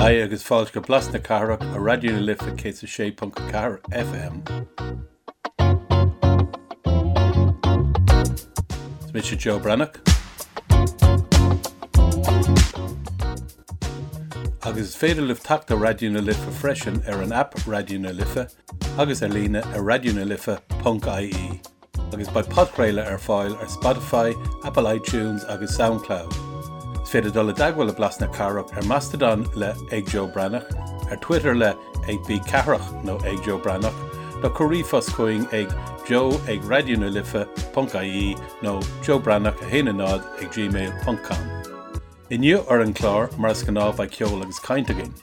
Haigh agus fáilte go Blas na Cathrach ar Raidió na Life 106.4 FM. Is mise Joe Breathnach. Agus is féidir libh teacht ar Raidió na Life freisin ar an aip Raidió na Life agus ar líne ar raidionalife.ie. Agus beidh podchraoladh ar fáil ar Spotify, Apple iTunes agus Soundcloud. Is féidir dul i dteagmháil le Blas na Cathrach ar Mastodon le ag Joe Breathnach, ar Twitter le ag B Cathrach nó ag Joe Breathnach, nó cuir ríomhphost chugainn ag joe ag raidionalife.ie nó joebreathnach 1 0 ag gmail ponc com. Inniu ar an gclár, mar is gnáth beidh ceol agus caint againn.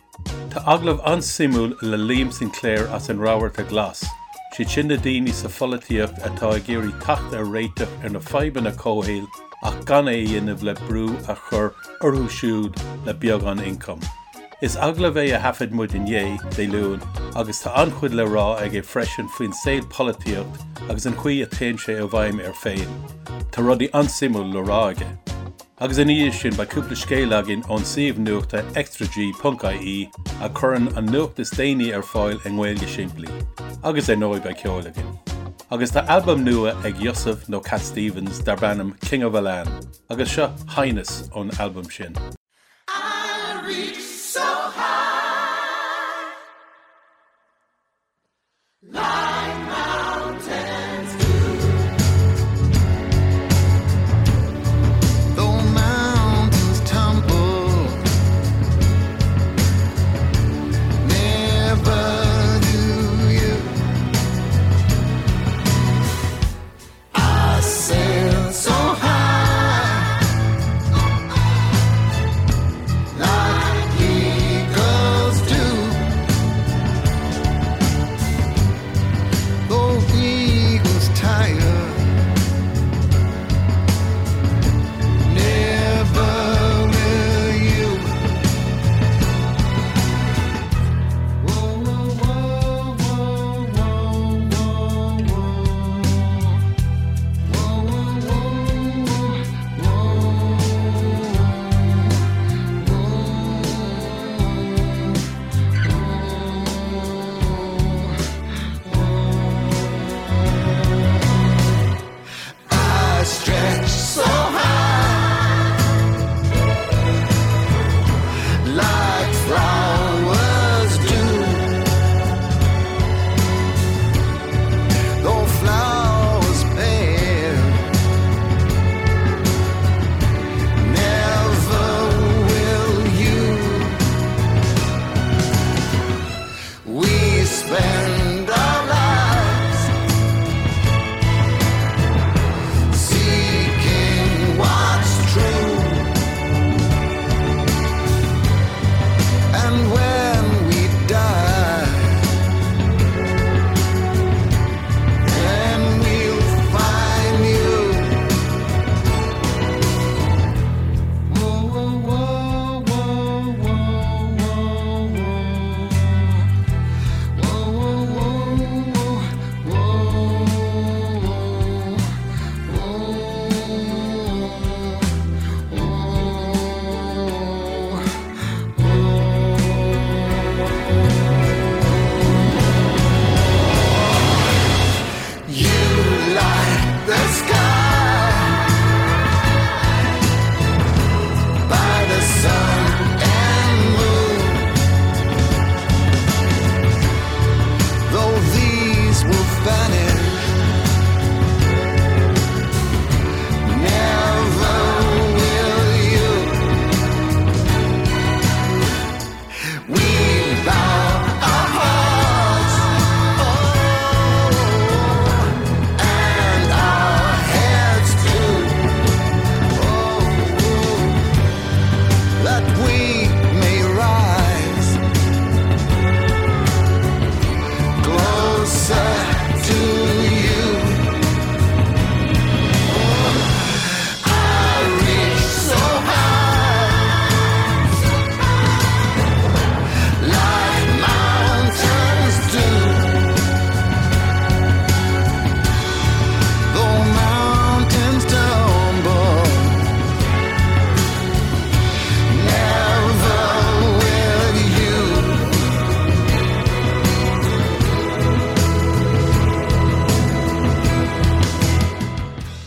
Tá agallamh an-suimiúil le Liam Sinclair as an Rabharta Glas, siad sin na daoine sa pholaitíocht atá ag iarraidh teacht ar réiteach ar na fadhbanna comhshaoil ach gan é a dhéanamh le brú a chur orthu siúd le beagán ioncaim. Is agallamh é a thaifead muid inné, Dé Luain, agus tá an-chuid le rá aige freisin faoin saol polaitíocht agus an chaoi a téann sé i bhfeidhm air féin. Tá rudaí an-suimiúil le rá aige. Agus ina dhiaidh sin beidh cúpla scéal againn ón suíomh nuachta extrag ponc ie a chuireann an nuacht is déanaí ar fáil i nGaeilge simplí. Agus ar ndóigh beidh ceol againn. Agus tá albam nua ag Yusuf nó Cat Stevens darb ainm King of Elan agus seo Highness ón albam sin. I reach so high. Like mountains do. Though mountains tumble, never do you. I sail so high.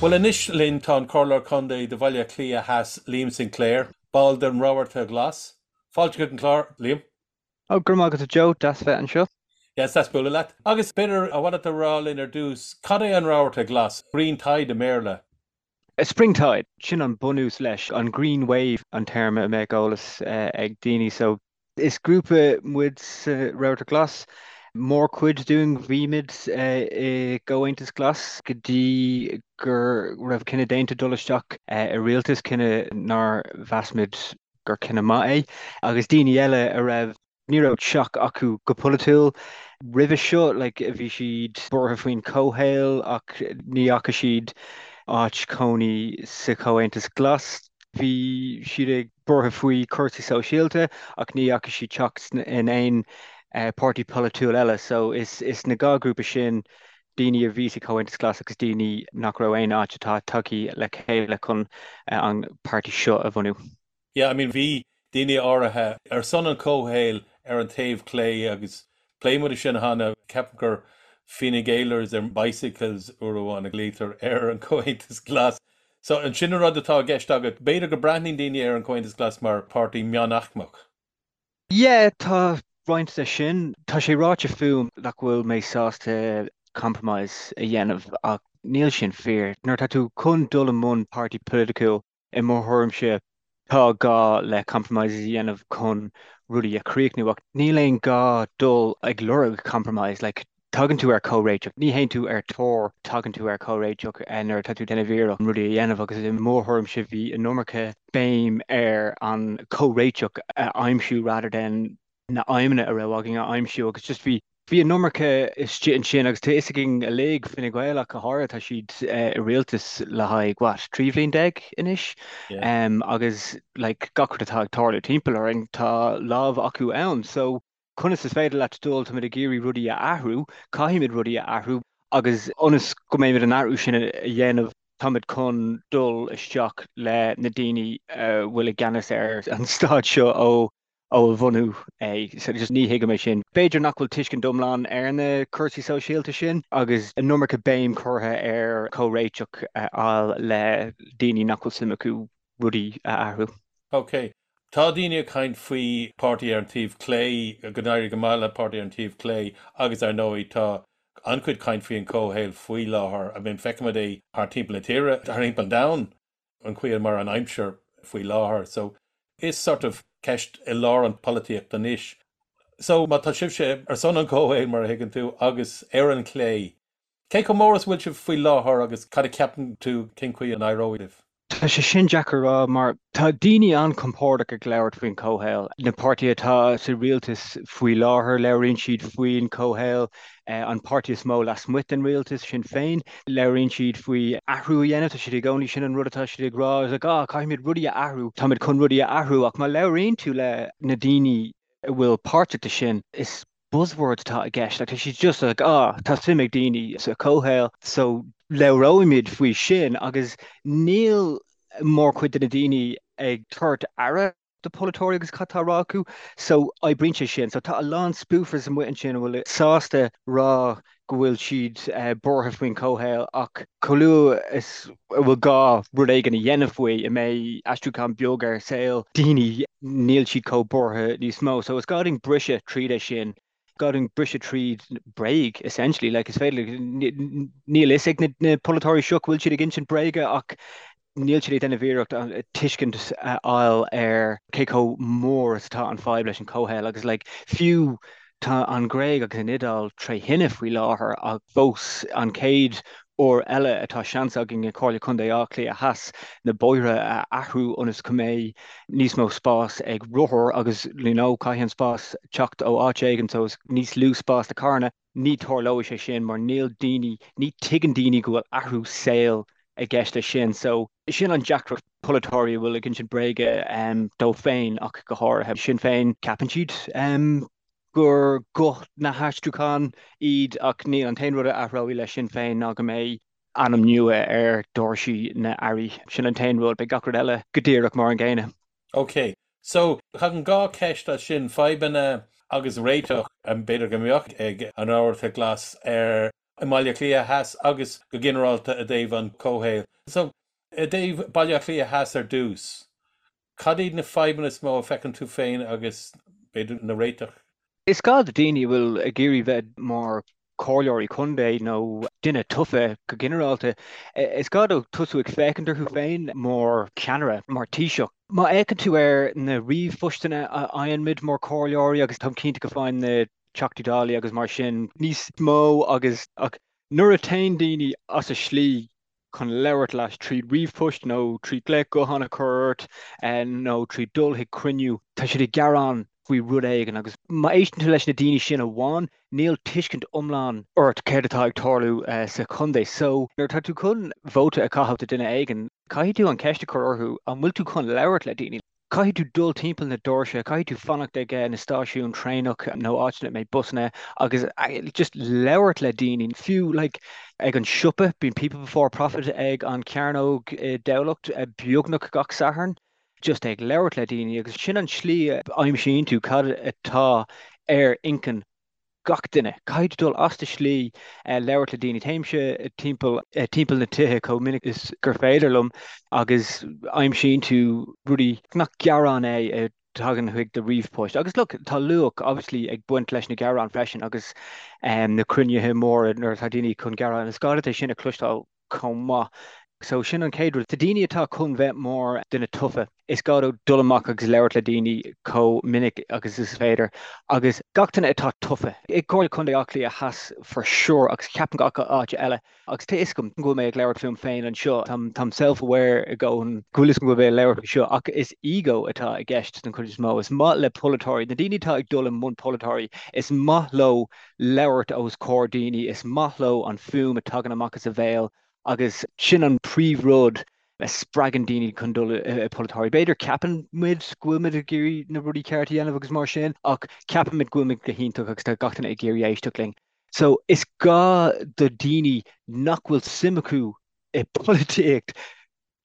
Bhuel anois linn tá an Comhairleoir Contae do Bhaile Átha Cliath Theas, Liam Sinclair, ball den Rabharta Glas. Fáilte chuig an chlár, Liam. Oh, go raibh maith agat a Joe, deas bheith anseo. Yes, deas bualadh leat. Agus b'fhéidir, ar mhaith leat a rá linn ar dtús, cad é an Rabharta Glas, Green Tide i mBéarla? Spring Tide, sin an bunús leis, an Green Wave an téarma a mbeadh eolas ag daoine. So, is grúpa muid sa Rabharta Glas, mórchuid dúinn bhí muid i gComhaontas Glas go dtí go raibh cinneadh déanta dul isteach i rialtas, cinneadh nár mheas muid gur cinneadh maith é, agus daoine eile a raibh, ní raibh teach acu go polaitiúil roimhe seo, like bhí siad buartha faoin chomhshaol ach ní fhaca siad áit cónaí sa Chomhaontas Glas. Bhí siad ag buartha faoi chúrsaí sóisialta ach ní fhaca siad teach in aon páirtí polaitiúil eile. So is is na dhá ghrúpa sin, daoine a bhí sa Chomhaontas Glas agus daoine nach raibh aon áit atá tagtha le chéile chun an páirtí seo a bhunú. Yeah, I mean bhí daoine áirithe ar son an chomhshaoil ar an taobh clé agus phléigh muid sin cheana, ceapaim gur Fine Gaelers ar bicycles uair amháin a ghlaoitear ar an Chomhaontas Glas. So an sin an rud atá i gceist agat? B'fhéidir go breathnaíonn daoine ar an Chomhaontas Glas mar páirtí meánaicmeach. Yeah, tá roinnt de sin. Tá sé ráite fúm nach bhfuil mé sásta compromise a dhéanamh ach níl sin fíor. Nuair atá tú chun dul i mbun páirtí polaitiúil, i mo thuairimse, tá gá le compromises a dhéanamh chun rudaí a chríochnú ach níl aon gá dul ag lorg compromise. Like, tagann tú ar comhréiteach, ní théann tú ar tóir, tagann tú ar comhréiteach nuair atá tú ag déanamh iarracht rudaí a dhéanamh agus i mo thuairimse bhí an iomarca béim ar an comhréiteach a aimsiú rather than na aidhmeanna a raibh againn a aimsiú agus just bhí bhí an iomarca istigh ansin agus tá fhios againn uilig, Fine Gael ach go háirithe, tá siad i rialtas le haghaidh what, 13 bhliain anois agus like gach rud atá ag tarlú timpeall orainn tá lámh acu ann so conas is féidir leat dul, táimid ag iarraidh rudaí a athrú, caithfimid rudaí a athrú agus ionas go mbeimid an athrú sin a dhéanamh táimid chun dul isteach le na daoine a bhfuil i gceannas ar an stát seo ó ó a bhunú é. So just ní thuigim é sin. B'fhéidir nach bhfuil tuiscint iomlán ar na cúrsaí sóisialta sin agus an iomarca béim curtha ar comhréiteach a fháil le daoine nach bhfuil suim acu rudaí a athrú. Ok. Tá daoine ag caint faoi páirtí ar an taobh clé, go n-éireoidh go maith le páirtí ar an taobh clé agus ar ndóigh tá an-chuid caint faoi an comhshaol faoi láthair. I mean feicimid é thar timpeall na tíre, thar timpeall an domhain. an chaoi mar an aimsir faoi láthair. So is sort of ceist i lár an polaitíocht anois. So má tá sibhse ar son an chomhshaoil mar a thuigeann tú agus ar an chlé, cé chomh mór is a bhfuil sibh faoi láthair agus cad a cheapann tú cén chaoi a n-éireoidh libh? Tá sé sin deacair a rá mar tá daoine an-chompordach ag labhairt faoin chomhshaol. Na páirtithe atá sa rialtas faoi láthair, labhraíonn siad faoin chomhshaol. An páirtí is mó lasmuigh den rialtas, Sinn Féin, labhraíonn siad faoi athrú a dhéanamh, tá siad i gcónaí, sin an rud atá siad ag rá, is like ah caithfimid rudaí a athrú, táimid chun rudaí a athrú ach má labhraíonn tú le na daoine a bhfuil páirteach de sin, is buzzwords atá i gceist, like tá siad just like ah tá suim ag daoine sa chomhshaol so labhróimid faoi sin agus níl mórchuid de na daoine ag tabhairt aire do polaiteoirí agus cad tá á rá acu. So oibríonn sé sin. So tá a lán spoofers amuigh ansin a bhfuil sásta rá go bhfuil siad buartha faoin chomhshaol ach chomh luath is a bhfuil gá rud éigin a dhéanamh faoi, a mbeidh aistriúchán beag ar saol daoine, níl siad chomh buartha níos mó. So is gá dúinn briseadh tríd é sin. gá dúinn briseadh tríd bréag, essentially. Like, is féidir, níl fhios ag na polaiteoirí seo go bhfuil siad ag insint bréige ach níl siad ag déanamh iarracht tuiscint a fháil ar cé chomh mór is atá an fadhb leis an chomhshaol agus like, fiú tá an Ghréig agus an Iodáil tré thine faoi láthair ach fós an chéad uair eile atá seans againn i Comhairle Contae Átha Cliath Theas na bóithre a athrú ionas go mbeidh níos mó spás ag rothair agus you know caithfidh an spás teacht ó áit éigin so is níos lú spás do carranna. Ní tarlóidh sé sin mar níl daoine, ní tuigeann daoine go bhfuil athrú saoil i gceist leis sin. So sin an deacracht polaiteoirí a bhfuil ag insint bréige dóibh féin ach go háirithe. Sinn Féin ceapann siad gur guth na haistriúcháin iad ach níl. An t-aon rud a athróidh le Sinn Féin ná go mbeidh ainm nua ar doirsí na n-airí. Sin an t-aon rud. Beidh gach rud eile go díreach mar an gcéanna. Ok. So, tagann 2 ceist as sin, fadhbanna agus réiteach, b'fhéidir go mbeadh ag an Rabharta Glas ar. i mBaile Átha Cliath Theas agus go ginearálta i dtaobh an chomhshaoil. So, i dtaobh Baile Átha Cliath Theas ar dtús, cad iad na fadhbanna is mó a feiceann tú féin agus b'fhéidir na réiteach? Is gá do daoine a bhfuil ag iarraidh bheith mar comhairleoirí contae nó duine tofa go ginearálta, is gá dóibh tosú ag féachaint orthu féin mar cheannaire, mar Taoiseach. Má fhéachann tú ar na ríomhphostanna a fhaigheann muid mar chomhairleoirí, agus táim cinnte go bhfaigheann na Teachtaí Dála agus mar sin níos mó agus ach nuair a théann daoine as a slí chun labhairt leat tríd ríomhphost nó trí glaoch gutháin a chur ort nó trí dul chuig cruinniú, tá siad ag gearán faoi rud éigin agus má éisteann tú leis na daoine sin amháin, níl tuiscint iomlán ort céard atá ag tarlú sa chontae. So, nuair atá tú chun vóta a chaitheamh do duine éigin, caithfidh tú an cheist a chur orthu, an bhfuil tú chun labhairt le daoine? Caithfidh tú dul timpeall na doirse, caithfidh tú fanacht ag na stáisiúin traenach nó áiteanna a mbeidh busanna agus just labhairt le daoine. Fiú like ag an siopa, bíonn People Before Profit ag an Chearnóg i dTamhlacht beagnach gach Satharn, just ag labhairt le daoine agus sin an tslí a aimsíonn tú cad atá ar intinn gach duine. Caithfidh tú dul as do shlí labhairt le daoine. Téimse timpeall timpeall na tithe chomh minic is gur féidir liom agus aimsíonn tú rudaí nach gearán é a thagann chuig do ríomhphost. Agus look, tá luach obviously ag baint leis na gearáin freisin agus na cruinnithe móra nuair atá daoine chun gearán. Is gá duit é sin a chloisteáil chomh maith. So sin an chéad rud. Do daoine atá chun bheith mar duine tofa, is gá dóibh dul amach agus labhairt le daoine chomh minic agus is féidir. Agus gach duine atá tofa, i gComhairle Contae Átha Cliath Theas for sure agus ceapaim gach áit eile, agus tá fhios agam go bhfuil mé ag labhairt fúm féin anseo, táim táim self-aware i gcónaí go bhfuil fhios agam go bhfuil mé ag labhairt faoi seo, ach is ego atá i gceist den chuid is mó. Is maith le polaiteoirí, na daoine atá ag dul i mbun polaiteoirí, is maith leo labhairt os comhair daoine, is maith leo an fuaim a tagann amach as a bhéal agus sin an príomhrud a spreagann daoine chun dul i polaiteoirí. B'fhéidir ceapann muid go bhfuil muid ag iarraidh na rudaí cearta a dhéanamh agus mar sin ach ceapann muid go bhfuil muid go hiontach agus tá gach duine ag iarraidh éisteacht linn. So is gá do daoine nach bhfuil suim acu i bpolaitíocht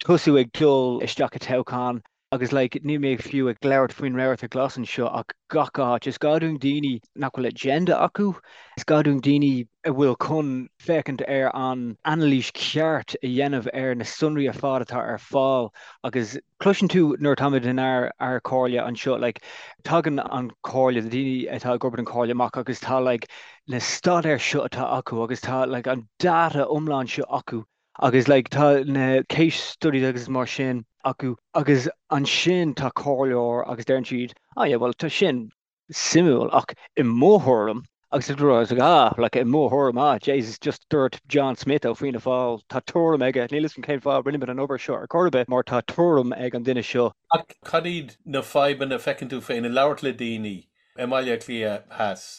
tosú ag dul isteach i toghchán agus like níl mé fiú ag labhairt faoin Rabharta Glas anseo ach gach áit. Is gá dúinn daoine nach bhfuil agenda acu, is gá dúinn daoine a bhfuil chun féachaint ar an anailís cheart a dhéanamh ar na sonraí ar fad atá ar fáil agus cloiseann tú nuair atáimid in ár ár comhairle anseo like tagann an comhairle, na daoine atá ag obair don chomhairle amach agus tá like na staidéir seo atá acu agus tá like an data iomlán seo acu Agus like tá na case studies agus mar sin acu agus ansin tá comhairleoir agus deireann siad oh yeah well tá sin suimiúil ach i mo thuairim agus it's like ah like i mo thuairim ah Jesus just dúirt John Smith ó Fianna Fáil tá tuairim aige níl fhios agam cén fáth rinne muid an obair seo ar chor ar bith mar tá tuairim ag an duine seo. Ach cad iad na fadhbanna a feiceann tú féin i labhairt le daoine i mBaile Átha Cliath Theas?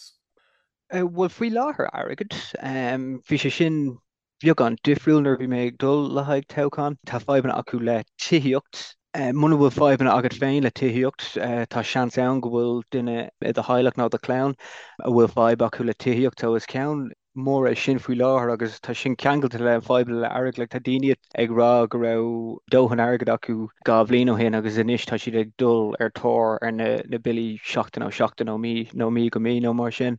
Bhuel faoi láthair airgead, bhí sé sin beagán difriúil nuair a bhí mé ag dul le haghaidh toghchán. Tá fadhbanna acu le tithíocht. Muna bhfuil fadhbanna agat féin le tithíocht, tá seans ann go bhfuil duine i do theaghlach nó do chlann a bhfuil fadhb acu le tithíocht. So is ceann mór é sin faoi láthair agus tá sin ceangailte le fadhbanna le airgead. Like tá daoine ag rá go raibh dóthain airgid acu 2 bhliain ó shin agus anois tá siad ag dul ar tóir ar na na billí seachtain ó sheachtain nó mí nó mí go mí nó mar sin.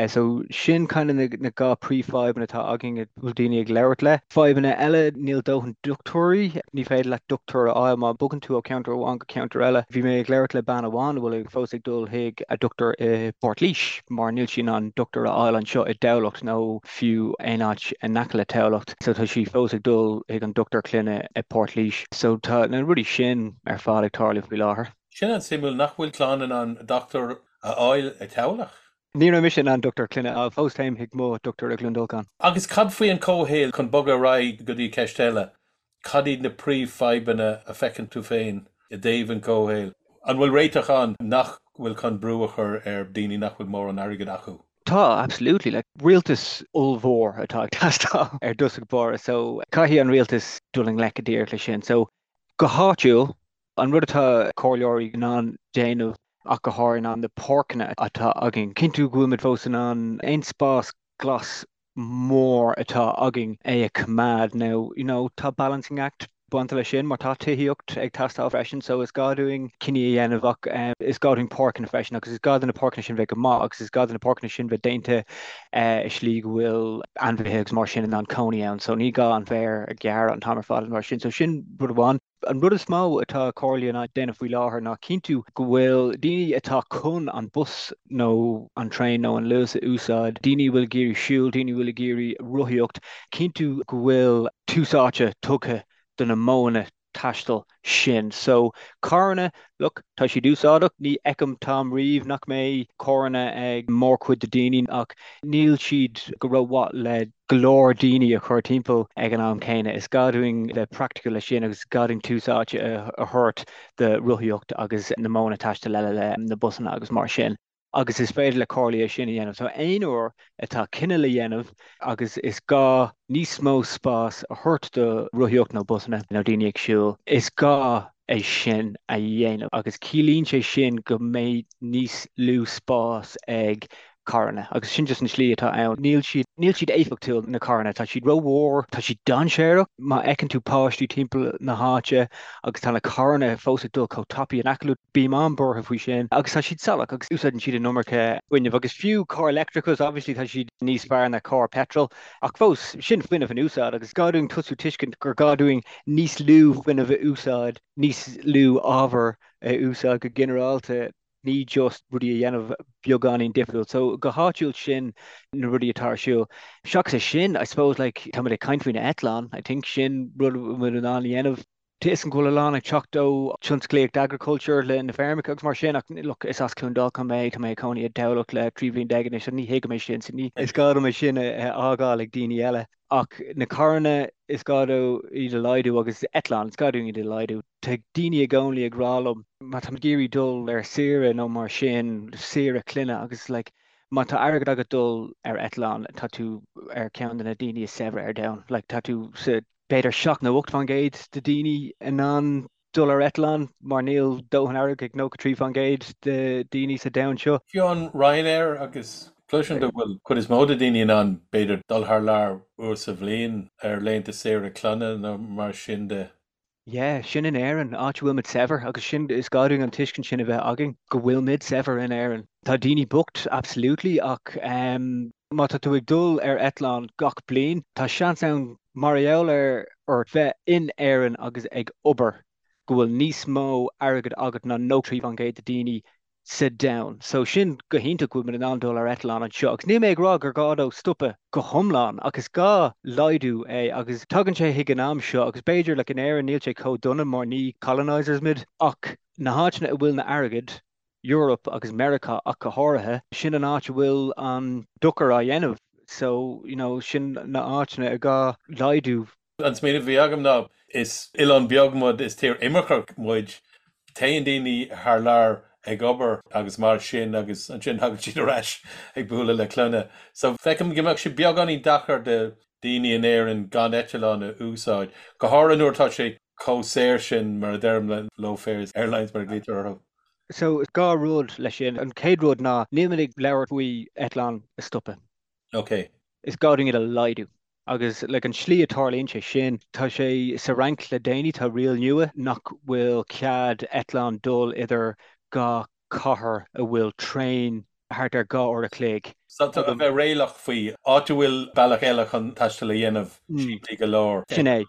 So sin kind of na na 2 príomhfhadhbanna atá againn a bhfuil daoine ag labhairt le. Fadhbanna eile, níl dóthain dochtúirí, ní féidir leat dochtúir a fháil má bogann tú ó cheantar amháin go ceantar eile. Bhí mé ag labhairt le bean amháin a bhfuil fós ag dul chuig a dochtúir i bPort Laoise mar níl sí in ann dochtúir a fháil anseo i dTamhlacht nó fiú aon áit in aice le Tamhlacht. So tá sí fós ag dul chuig an dochtúir clainne i bPort Laoise. So tá na rudaí sin ar fad ag tarlú faoi láthair. Sin an-suimiúil nach bhfuil clann in ann dochtúir a fháil i Tamhlacht. Ní raibh mise in ann dochtúir clainne a fháil, fós téim chuig mo dochtúir i gCluain Dolcáin. Agus cad faoi an comhshaol, chun bogadh ar aghaidh go dtí ceist eile, cad iad na príomhfhadhbanna a feiceann tú féin i dtaobh an chomhshaoil? An bhfuil réiteach ann nach bhfuil chun brú a chur ar daoine nach bhfuil mórán airgid acu? Tá, absolutely. Like, rialtas ollmhór atá ag teastáil ar dtosach báire, so caithfidh an rialtas dul i ngleic go díreach leis sin. So, go háitiúil, an rud atá comhairleoirí in ann déanamh ach go háirithe ná na páirceanna atá againn, cinntiú go bhfuil muid fós in ann aon spás glas mór atá againn é a choimeád. Now, you know, tá balancing act. bainte leis sin mar tá tithíocht ag teastáil freisin so is gá dúinn cinní a dhéanamh ach is gá dúinn páirceanna freisin agus is gá do na páirceanna sin bheith go maith agus is gá do na páirceanna sin bheith déanta i slí go bhfuil ainmhithe agus mar sin in ann cónaí ann so ní gá an féar a ghearradh an t-am ar fad mar sin so sin rud amháin. An rud is mó atá comhairlí in ann déanamh faoi láthair ná cinntiú go bhfuil daoine atá chun an bus nó an traein nó an Luas a úsáid, daoine a bhfuil ag iarraidh siúl, daoine a bhfuil ag iarraidh rothaíocht, cinntiú go bhfuil tús áite tugtha do na modhanna taistil sin. So, carranna, look, tá siad úsáideach, ní fheicim t-am riamh nach mbeidh carranna ag mórchuid de daoine ach níl siad go rómhaith le go leor daoine a chur timpeall ag an am céanna. Is gá dúinn bheith praiticiúil leis sin agus is gá dúinn tús áite a thabhairt do rothaíocht agus na modhanna taistil eile le na busanna agus mar sin. Agus is féidir le comhairlí é sin a dhéanamh. So aon uair atá cinneadh le dhéanamh agus is gá níos mó spás a thabhairt do rothaíocht nó busanna nó daoine ag siúl, is gá é sin a dhéanamh agus ciallaíonn sé sin go mbeidh níos lú spás ag carranna agus sin just an slí atá ann. Níl siad, níl siad éifeachtúil, na carranna. Tá siad rómhór, tá siad dainséarach. Má fheiceann tú páistí timpeall na háite agus tá na carranna fós ag dul chomh tapaidh in aice leo, bím an-buartha faoi sin. Agus tá siad salach agus úsáideann siad an iomarca fuinnimh agus fiú carr leictreachais, obviously tá siad níos fearr ná carr petrol ach fós, sin fuinneamh in úsáid agus gá dúinn tosú tuiscint gur gá dúinn níos lú fuinnimh a úsáid, níos lú ábhar a úsáid go ginearálta. ní just rudaí a dhéanamh beagáinín difriúil. So go háitiúil sin na rudaí atá ar siúl. Seachas é sin, I suppose like táimid ag caint faoi na eitleáin, I think sin rud a bhfuil muid in ann a dhéanamh. Tá a fhios agam go bhfuil a lán ag teacht ó tionsclaíocht agriculture le na feirmeacha agus mar sin ach look is as Cluain Dolcáin mé, tá mé ag cónaí i dTamhlacht le 13 bhliain anois so ní thuigim é sin so ní is gá dom é sin a fhágáil ag daoine eile. Ach na carranna is gá dó iad a laghdú agus eitleáin is gá dúinn iad a laghdú. Tá daoine i gcónaí ag rá liom má tá mé ag iarraidh dul ar saoire nó mar sin, saoire clainne agus like má tá airgead agat dul ar eitleán tá tú ar ceann de na daoine is saibhre ar domhan. Like tá tú sa b'fhéidir 7 nó 8% de daoine in ann dul ar eitleán mar níl dóthain airgid ag 93% de daoine sa domhan seo. Fiú an Ryanair agus cloisim go bhfuil cuid is mó de daoine in ann b'fhéidir dul thar lear uair sa bhliain ar laethanta saoire clainne nó mar sin de. Yeah, sin in Éirinn, áit a bhfuil muid saibhir agus sin, is gá dúinn an tuiscint sin a bheith againn, go bhfuil muid saibhir in Éirinn. Tá daoine bocht, absolutely, ach má tá tú ag dul ar eitleán gach bliain, tá seans ann mar gheall ar ort bheith in Éirinn agus ag obair, go bhfuil níos mó airgid agat ná 93% de daoine sa domhan. So sin go hiontach go bhfuil muid in ann dul ar eitleán anseo. Agus níl mé ag rá gur gá dó stopadh go hiomlán ach is gá laghdú é agus tagann sé chuig an am seo agus b'fhéidir like in Éirinn níl sé chomh dona mar ní colonisers muid ach na háiteanna a bhfuil na airgead Europe agus Meiriceá ach go háirithe, sin an áit a bhfuil an dochar á dhéanamh. So, you know, sin na áiteanna a gá laghdú. An smaoineamh a bhí agam ná, is oileán beag muid, is tír imirceach muid, téann daoine thar lear ag obair agus mar sin agus ansin tagann siad ar ais ag bualadh le clainne. So feicim go mbeadh sé beagáinín deacair do daoine in Éirinn gan eitleán a úsáid, go háirithe nuair atá sé chomh saor sin, mar a deirim, le low fares airlines mar a ghlaoitear orthu. So, dhá rud leis sin. An chéad rud ná, níl muid ag labhairt faoi eitleáin a stopadh. Ok. Is gá dúinn iad a laghdú. Agus like an slí a tarlaíonn sé sin, tá sé sa Fhrainc le déanaí, tá riail nua nach bhfuil cead eitleán dul idir dhá cathair a bhfuil traein thart ar 2 uair a chloig. So a bheith réalaíoch faoi áit a bhfuil bealach eile chun taisteal a dhéanamh simplí go leor. Sin é.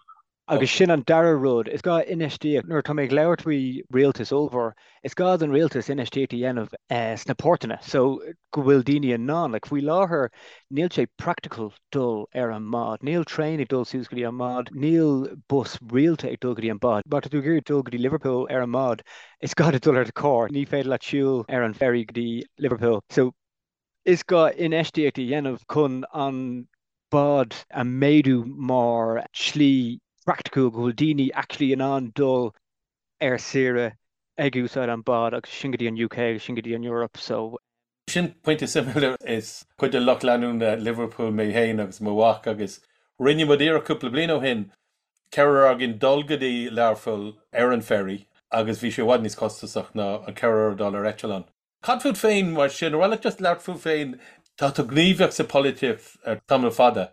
Agus sin an dara rud, is gá infheistíocht, nuair atá mé ag labhairt faoi rialtas ollmhór, is gá don rialtas infheistíocht a dhéanamh sna portanna so go bhfuil daoine in ann, like faoi láthair níl sé practical dul ar an mbád, níl traein ag dul suas go dtí an mbád, níl bus rialta ag dul go dtí an bád. Má tá tú ag iarraidh dul go dtí Liverpool ar an mbád, is gá duit dul ar do charr, ní féidir leat siúl ar an ferry go dtí Liverpool. So Is gá infheistíocht a dhéanamh chun an bád a mhéadú mar shlí praiticiúil go bhfuil daoine actually in ann dul ar saoire ag úsáid an bád agus sin go dtí an UK agus sin go dtí an Europe so. Sin pointe suimiúil. Is cuid de lucht leanúna Liverpool mé féin agus mo mhac agus rinne muid iarracht cúpla bliain ó shin ceathrar againn dul go dtí Learpholl ar an ferry agus bhí sé i bhfad níos costasach ná an ceathrar dul ar eitleán. Cad fút féin mar sin? Ar mhaith leat just labhairt fút féin? Tá tú gníomhach sa pholaitíocht ar tamall fada.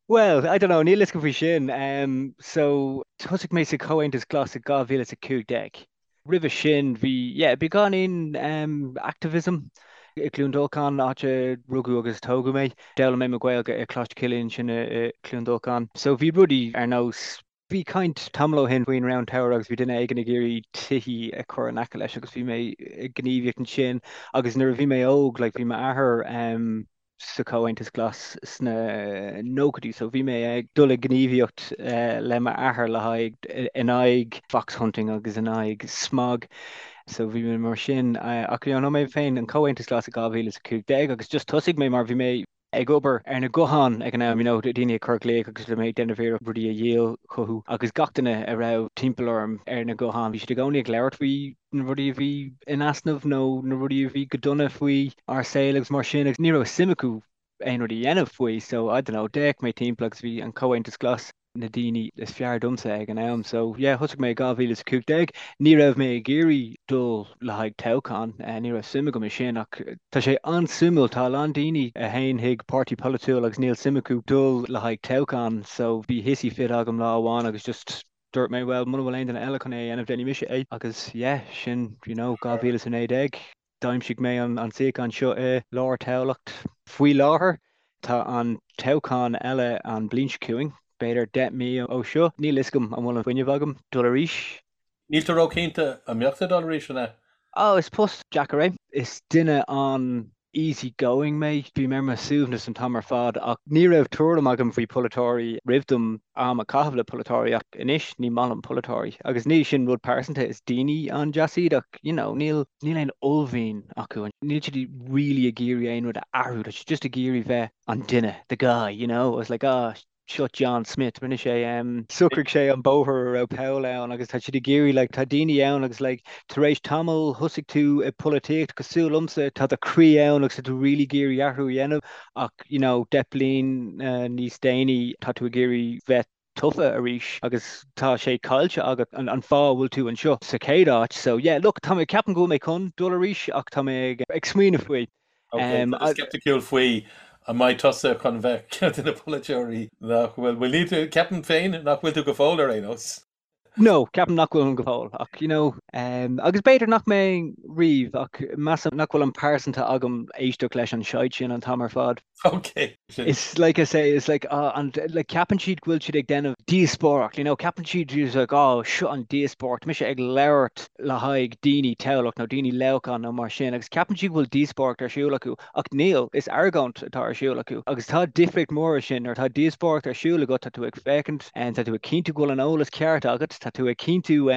Well, I don't know, níl fhios agam faoi sin. Um, so, thosaigh mé sa Chomhaontas Glas i 2015. Roimhe sin, bhí, yeah, beagáinín um, activism i gCluain Dolcáin, áit a rugadh agus tógadh mé. D'fhoghlaim mé mo Ghaeilge i Coláiste Chilliain sin i, i Cluain Dolcáin. So bhí rudaí ar nós Bhí caint tamall ó shin faoin Round Tower agus bhí duine éigin ag iarraidh tithe a chur in aice leis agus bhí mé ag gníomhaíocht ansin agus nuair a bhí mé óg like bhí m'athair um, sa Chomhaontas Glas sna nóchaidí so bhí mé ag dul ag gníomhaíocht uh, le m'athair le haghaidh in aghaidh fox hunting agus in aghaidh smog so bhí mé mar sin uh, ach you know, mé féin an Comhaontas Glas i 2015 agus just thosaigh mé mar bhí mé ag obair ar na gutháin ag an am, you know, daoine ag cur glaoch agus bhí mé ag déanamh iarracht rudaí a dhíol chucu agus gach duine a raibh timpeall orm ar na gutháin, bhí siad i gcónaí ag labhairt faoi na rudaí a bhí in easnamh nó na rudaí a bhí go dona faoi ár saol agus mar sin agus ní raibh suim acu aon rud a dhéanamh faoi so I don't know, d'fhéach mé timpeall agus bhí an Comhaontas Glas na daoine is fearr domsa ag an am. So yeah, thosaigh mé i 2015. Ní raibh mé ag iarraidh dul le haghaidh toghchán, ní raibh suim agam i sin ach tá sé an-suimiúil, tá a lán daoine a théann chuig páirtí polaitiúil agus níl suim acu dul le haghaidh toghchán so bhí hissy fit agam lá amháin agus just dúirt mé well muna bhfuil aon duine eile chun é a dhéanamh déanfaidh mise é agus yeah, sin you know 2019. D'aimsigh mé an suíochán seo i lár Tamhlacht. Faoi láthair, tá an toghchán eile an bhliain seo chugainn, b'fhéidir 10 mí ó seo. Níl fhios agam an bhfuil an fuinneamh agam dul arís. Níl tú róchinnte an mbeadh tú ag dul arís, an ea? Ó, is post deacair é. Is duine an easy going mé. Bím ar mo shuaimhneas an t-am ar fad ach ní raibh tuairim agam faoi pholaiteoirí roimh dom am a chaitheamh le polaiteoirí ach anois ní maith liom polaiteoirí agus ní sin rud pearsanta, is daoine an-deas iad ach you know níl níl aon uaillmhian acu, níl siad really ag iarraidh aon rud a athrú, tá siad just ag iarraidh bheith an duine, the guy, you know, it's like ah seo John Smith, rinne sé um, socraigh sé an bóthar a raibh poll ann agus tá siad ag iarraidh like tá daoine ann agus like tar éis tamall thosaigh tú i polaitíocht cosúil liomsa tá do chroí ann agus tá tú really ag iarraidh athrú a dhéanamh ach you know 10 bliain níos déanaí tá tú ag iarraidh bheith tofa arís agus tá sé caillte agat an an fáth a bhfuil tú anseo sa chéad áit so yeah look tá mé ceapaim go bhfuil mé chun dul arís ach tá mé ag ag smaoineamh faoi. Ok, tá tú sceipticiúil faoi an mbeidh tusa chun bheith ceann de na polaiteoirí nach bhfuil, bhuel níl tú, ceapaim féin nach bhfuil tú go fóill ar aon nós. No, ceapaim nach bhfuilim go fóill, ach you know, um, agus b'fhéidir nach mbeinn riamh, ach measaim nach bhfuil an pearsanta agam éisteacht leis an shite sin an t-am ar fad. Ok, sin. It's like I say, it's like, ah, and like ceapann siad go bhfuil siad ag déanamh díospóireacht, you know, ceapann siad it's like, oh, seo an díospóireacht, mise ag labhairt le haghaidh daoine Tamhlacht nó daoine Leamhcán nó mar sin, agus ceapann siad go bhfuil díospóireacht ar siúl acu. Ach níl, is argóint atá ar siúl acu. Agus tá difríocht mór ansin, nuair atá díospóireacht ar siúl agat, tá tú ag féachaint, tá tú ag cinntiú go bhfuil an eolas ceart agat, tá tú ag cinntiú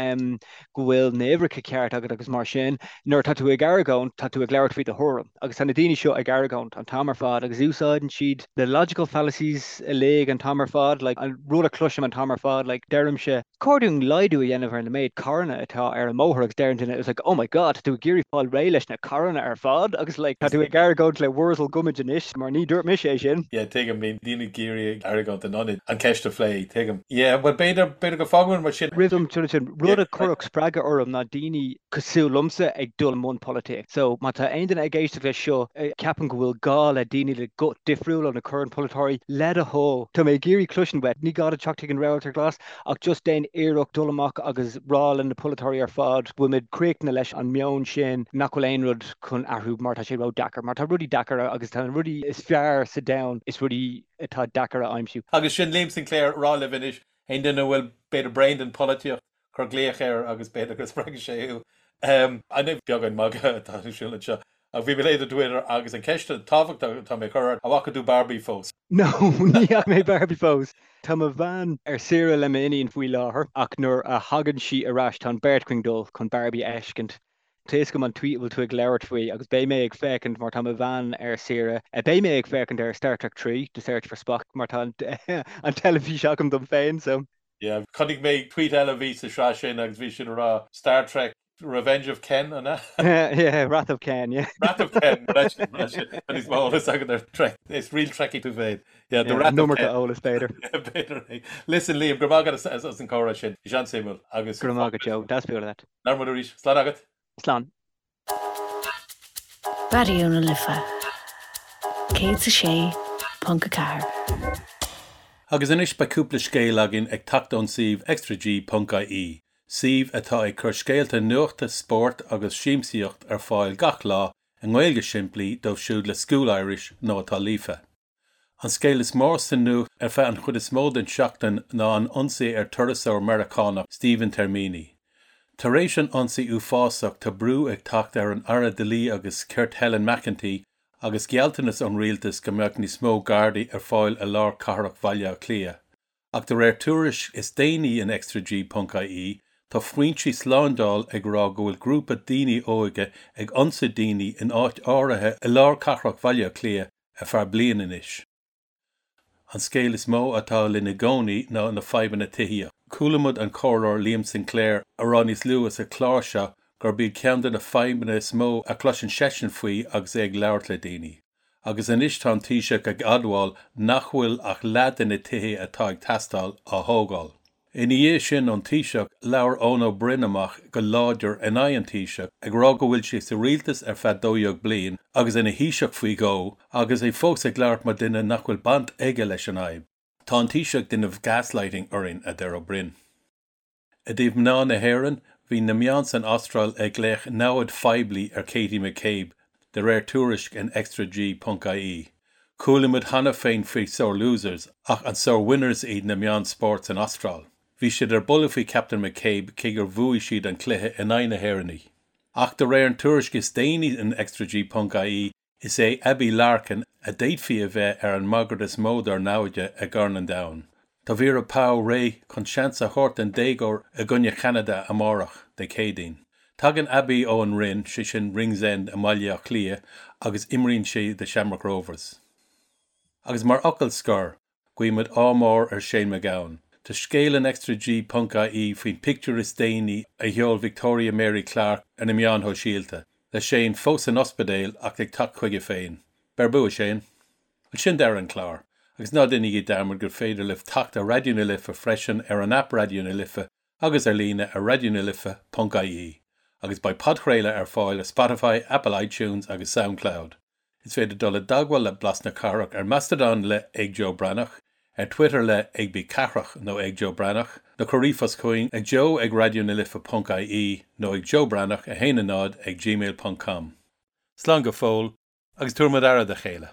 go bhfuil na huimhreacha ceart agat agus mar sin. Nuair atá tú ag argóint, tá tú ag labhairt faoi do thuairim. Agus tá na daoine seo ag argóint an t-am ar fad agus úsáideann siad na logical fallacies uilig an t-am ar fad, like an rud a chloisim an t-am ar fad, like deirimse, Chóir dúinn laghdú a dhéanamh ar na méid carranna atá ar an mbóthar agus deir an duine it's like oh my god tá tú ag iarraidh fáil réidh leis na carranna ar fad agus like tá tú ag argóint le Wurzel Gummidge anois mar ní dúirt mise é sin. Yeah tuigim, bíonn daoine ag iarraidh argóint in ionad an ceist a phlé, tuigim. Yeah bhuel b'fhéidir, b'fhéidir go bhfágfaimid mar sin. Roimh dom dul sin, rud a chuirfeadh spreagadh orm ná daoine cosúil liomsa ag dul i mbun polaitíocht. So má tá aon duine ag éisteacht leis seo a cheapann go bhfuil gá le daoine le guth difriúil ó na current polaiteoirí, le do thoil, tá mé ag iarraidh cloisint uait, ní gá duit teacht chuig an Rabharta Glas, Ach just déan iarracht dul amach agus rá le na polaiteoirí ar fad go bhfuil muid críochnaithe leis an meon sin nach bhfuil aon rud chun athrú mar tá sé ró-deacair. Mar tá rudaí deacair agus tá na rudaí is fearr sa domhan is rudaí atá deacair a aimsiú. Agus sin Liam Sinclair ag rá libh anois, aon duine a bhfuil b'fhéidir bréan den pholaitíocht, cuir glaoch air agus b'fhéidir go spreagfaidh sé thú. An beagán magadh atá ar siúl anseo. Ach bhí mé ag léamh do Twitter agus an ceist tábhachtach atá mé a chur ort, an bhfaca tú Barbie fós? No, ní fhaca mé Barbie fós. Tá mo bhean ar saoire le m'iníon faoi láthair ach nuair a thagann sí ar ais tá an bheirt againn dul chun Barbie a fheiscint. Tá fhios agam an tweet a bhfuil tú ag labhairt faoi agus beidh mé ag féachaint mar tá mo bhean ar saoire. Beidh mé ag féachaint ar Star Trek 3, The Search for Spock mar tá an teilifís agam dom féin so. Yeah, chonaic mé tweet eile a bhí sa sraith sin agus bhí sin ag rá Star Trek Revenge of Ken, an ea? Yeah, Wrath of Ken, yeah. Wrath of Ken, leis, leis, tá níos mó eolas agat ar Trek, is real Trekkie tú féin. Yeah, the Wrath of Ken. Eolas, b'fhéidir. B'fhéidir é. Listen, Liam, go raibh maith agat as an comhrá sin. Bhí sé an-suimiúil agus. Go raibh maith agat, Joe. Deas bualadh leat. Labhróidh muid arís. Slán agat. Slán. Raidió na Life 106.4. Agus anois beidh cúpla scéal againn ag teacht ón suíomh extrag.ie, suíomh atá ag cur scéalta nuachta, spóirt agus siamsaíocht ar fáil gach lá i nGaeilge simplí dóibh siúd le School Irish nó atá líofa. An scéal is mó sa nuacht ar feadh an chuid is mó den seachtain ná an ionsaí ar turasóir Meiriceánach Stephen Termini. Tar éis an ionsaí uafásach tá brú ag teacht ar an Aire Dlí agus Cirt Helen McEntee agus gealltanas ón rialtas go mbeadh níos mó Gardaí ar fáil i lár cathrach Bhaile Átha Cliath. Ach de réir tuairisc is déanaí in extrag.ie, tá foinsí slándáil ag rá go bhfuil grúpa daoine óige ag ionsaí daoine in áit áirithe i lár cathrach Bhaile Átha Cliath ar feadh bliain anois. An scéal is mó atá linn i gcónaí ná na fadhbanna tithíochta. Chuala muid an Comhairleoir Liam Sinclair a rá níos luaithe sa chlár seo gurb iad ceann de na fadhbanna is mó a chloiseann seisean faoi agus é ag labhairt le daoine. Agus anois tá an Taoiseach ag admháil nach bhfuil ach leath de na tithe atá ag teastáil á thógáil. Ina dhiaidh sin ón Taoiseach, labhair Eoin Ó Broin amach go láidir in aghaidh an Taoiseach, ag rá go bhfuil sé sa rialtas ar feadh 12 bliain agus ina Thaoiseach faoi dhó, agus é fós ag labhairt mar duine nach bhfuil baint aige leis an fhadhb. Tá an Taoiseach ag déanamh gaslighting orainn, a deir Ó Broin. I dtaobh mná na hÉireann, bhí na meáin san Astráil ag glaoch namhaid phoiblí ar Katie McCabe, de réir tuairisc in extrag.ie. Chuala muid cheana féin faoi sore losers, ach an sore winners iad na meáin spóirt san Astráil? Bhí siad ar buile faoi Captain McCabe cé gur bhuaigh siad an cluiche in aghaidh na hÉireannaigh. Ach de réir an tuairisc is déanaí in extrag.ie, is é Abbie Larkin a d'fhéadfaí a bheith ar an mbagairt is mó dár naimhde i gCorn an Domhain. Tá Vera Pauw réidh chun seans a thabhairt don déagóir i gcoinne Cheanada amárach, Dé Céadaoin. Tagann Abbie ó an Rinn, sé sin Ringsend i mBaile Átha Cliath, agus imríonn sí do Shamrock Rovers. Agus mar fhocal scoir, guímid ádh mór ar Shane MacGowan. Tá scéal in extrag.ie faoin pictiúr is déanaí a sheol Victoria Mary Clarke ar na meáin shóisialta, le Shane fós san ospidéal ach ag teacht chuige féin. Beir bua, Shane! Bhuel, sin deireadh an chláir. Agus ná déanaigí dearmad gur féidir libh teacht ar Raidió na Life freisin ar an aip Raidió na Life agus ar líne ar raidionalife.ie. Agus beidh podchraoladh ar fáil ar Spotify, Apple iTunes agus Soundcloud. Is féidir dul i dteagmháil le Blas na Cathrach ar Mastodon le ag Joe Breathnach, ar Twitter le ag B Cathrach nó ag Joe Breathnach, nó cuir ríomhphost chugainn ag joe ag raidionalife.ie nó ag joebreathnach 1 0 ag gmail.com. Slán go fóill, agus tabharfaimid aire dá chéile.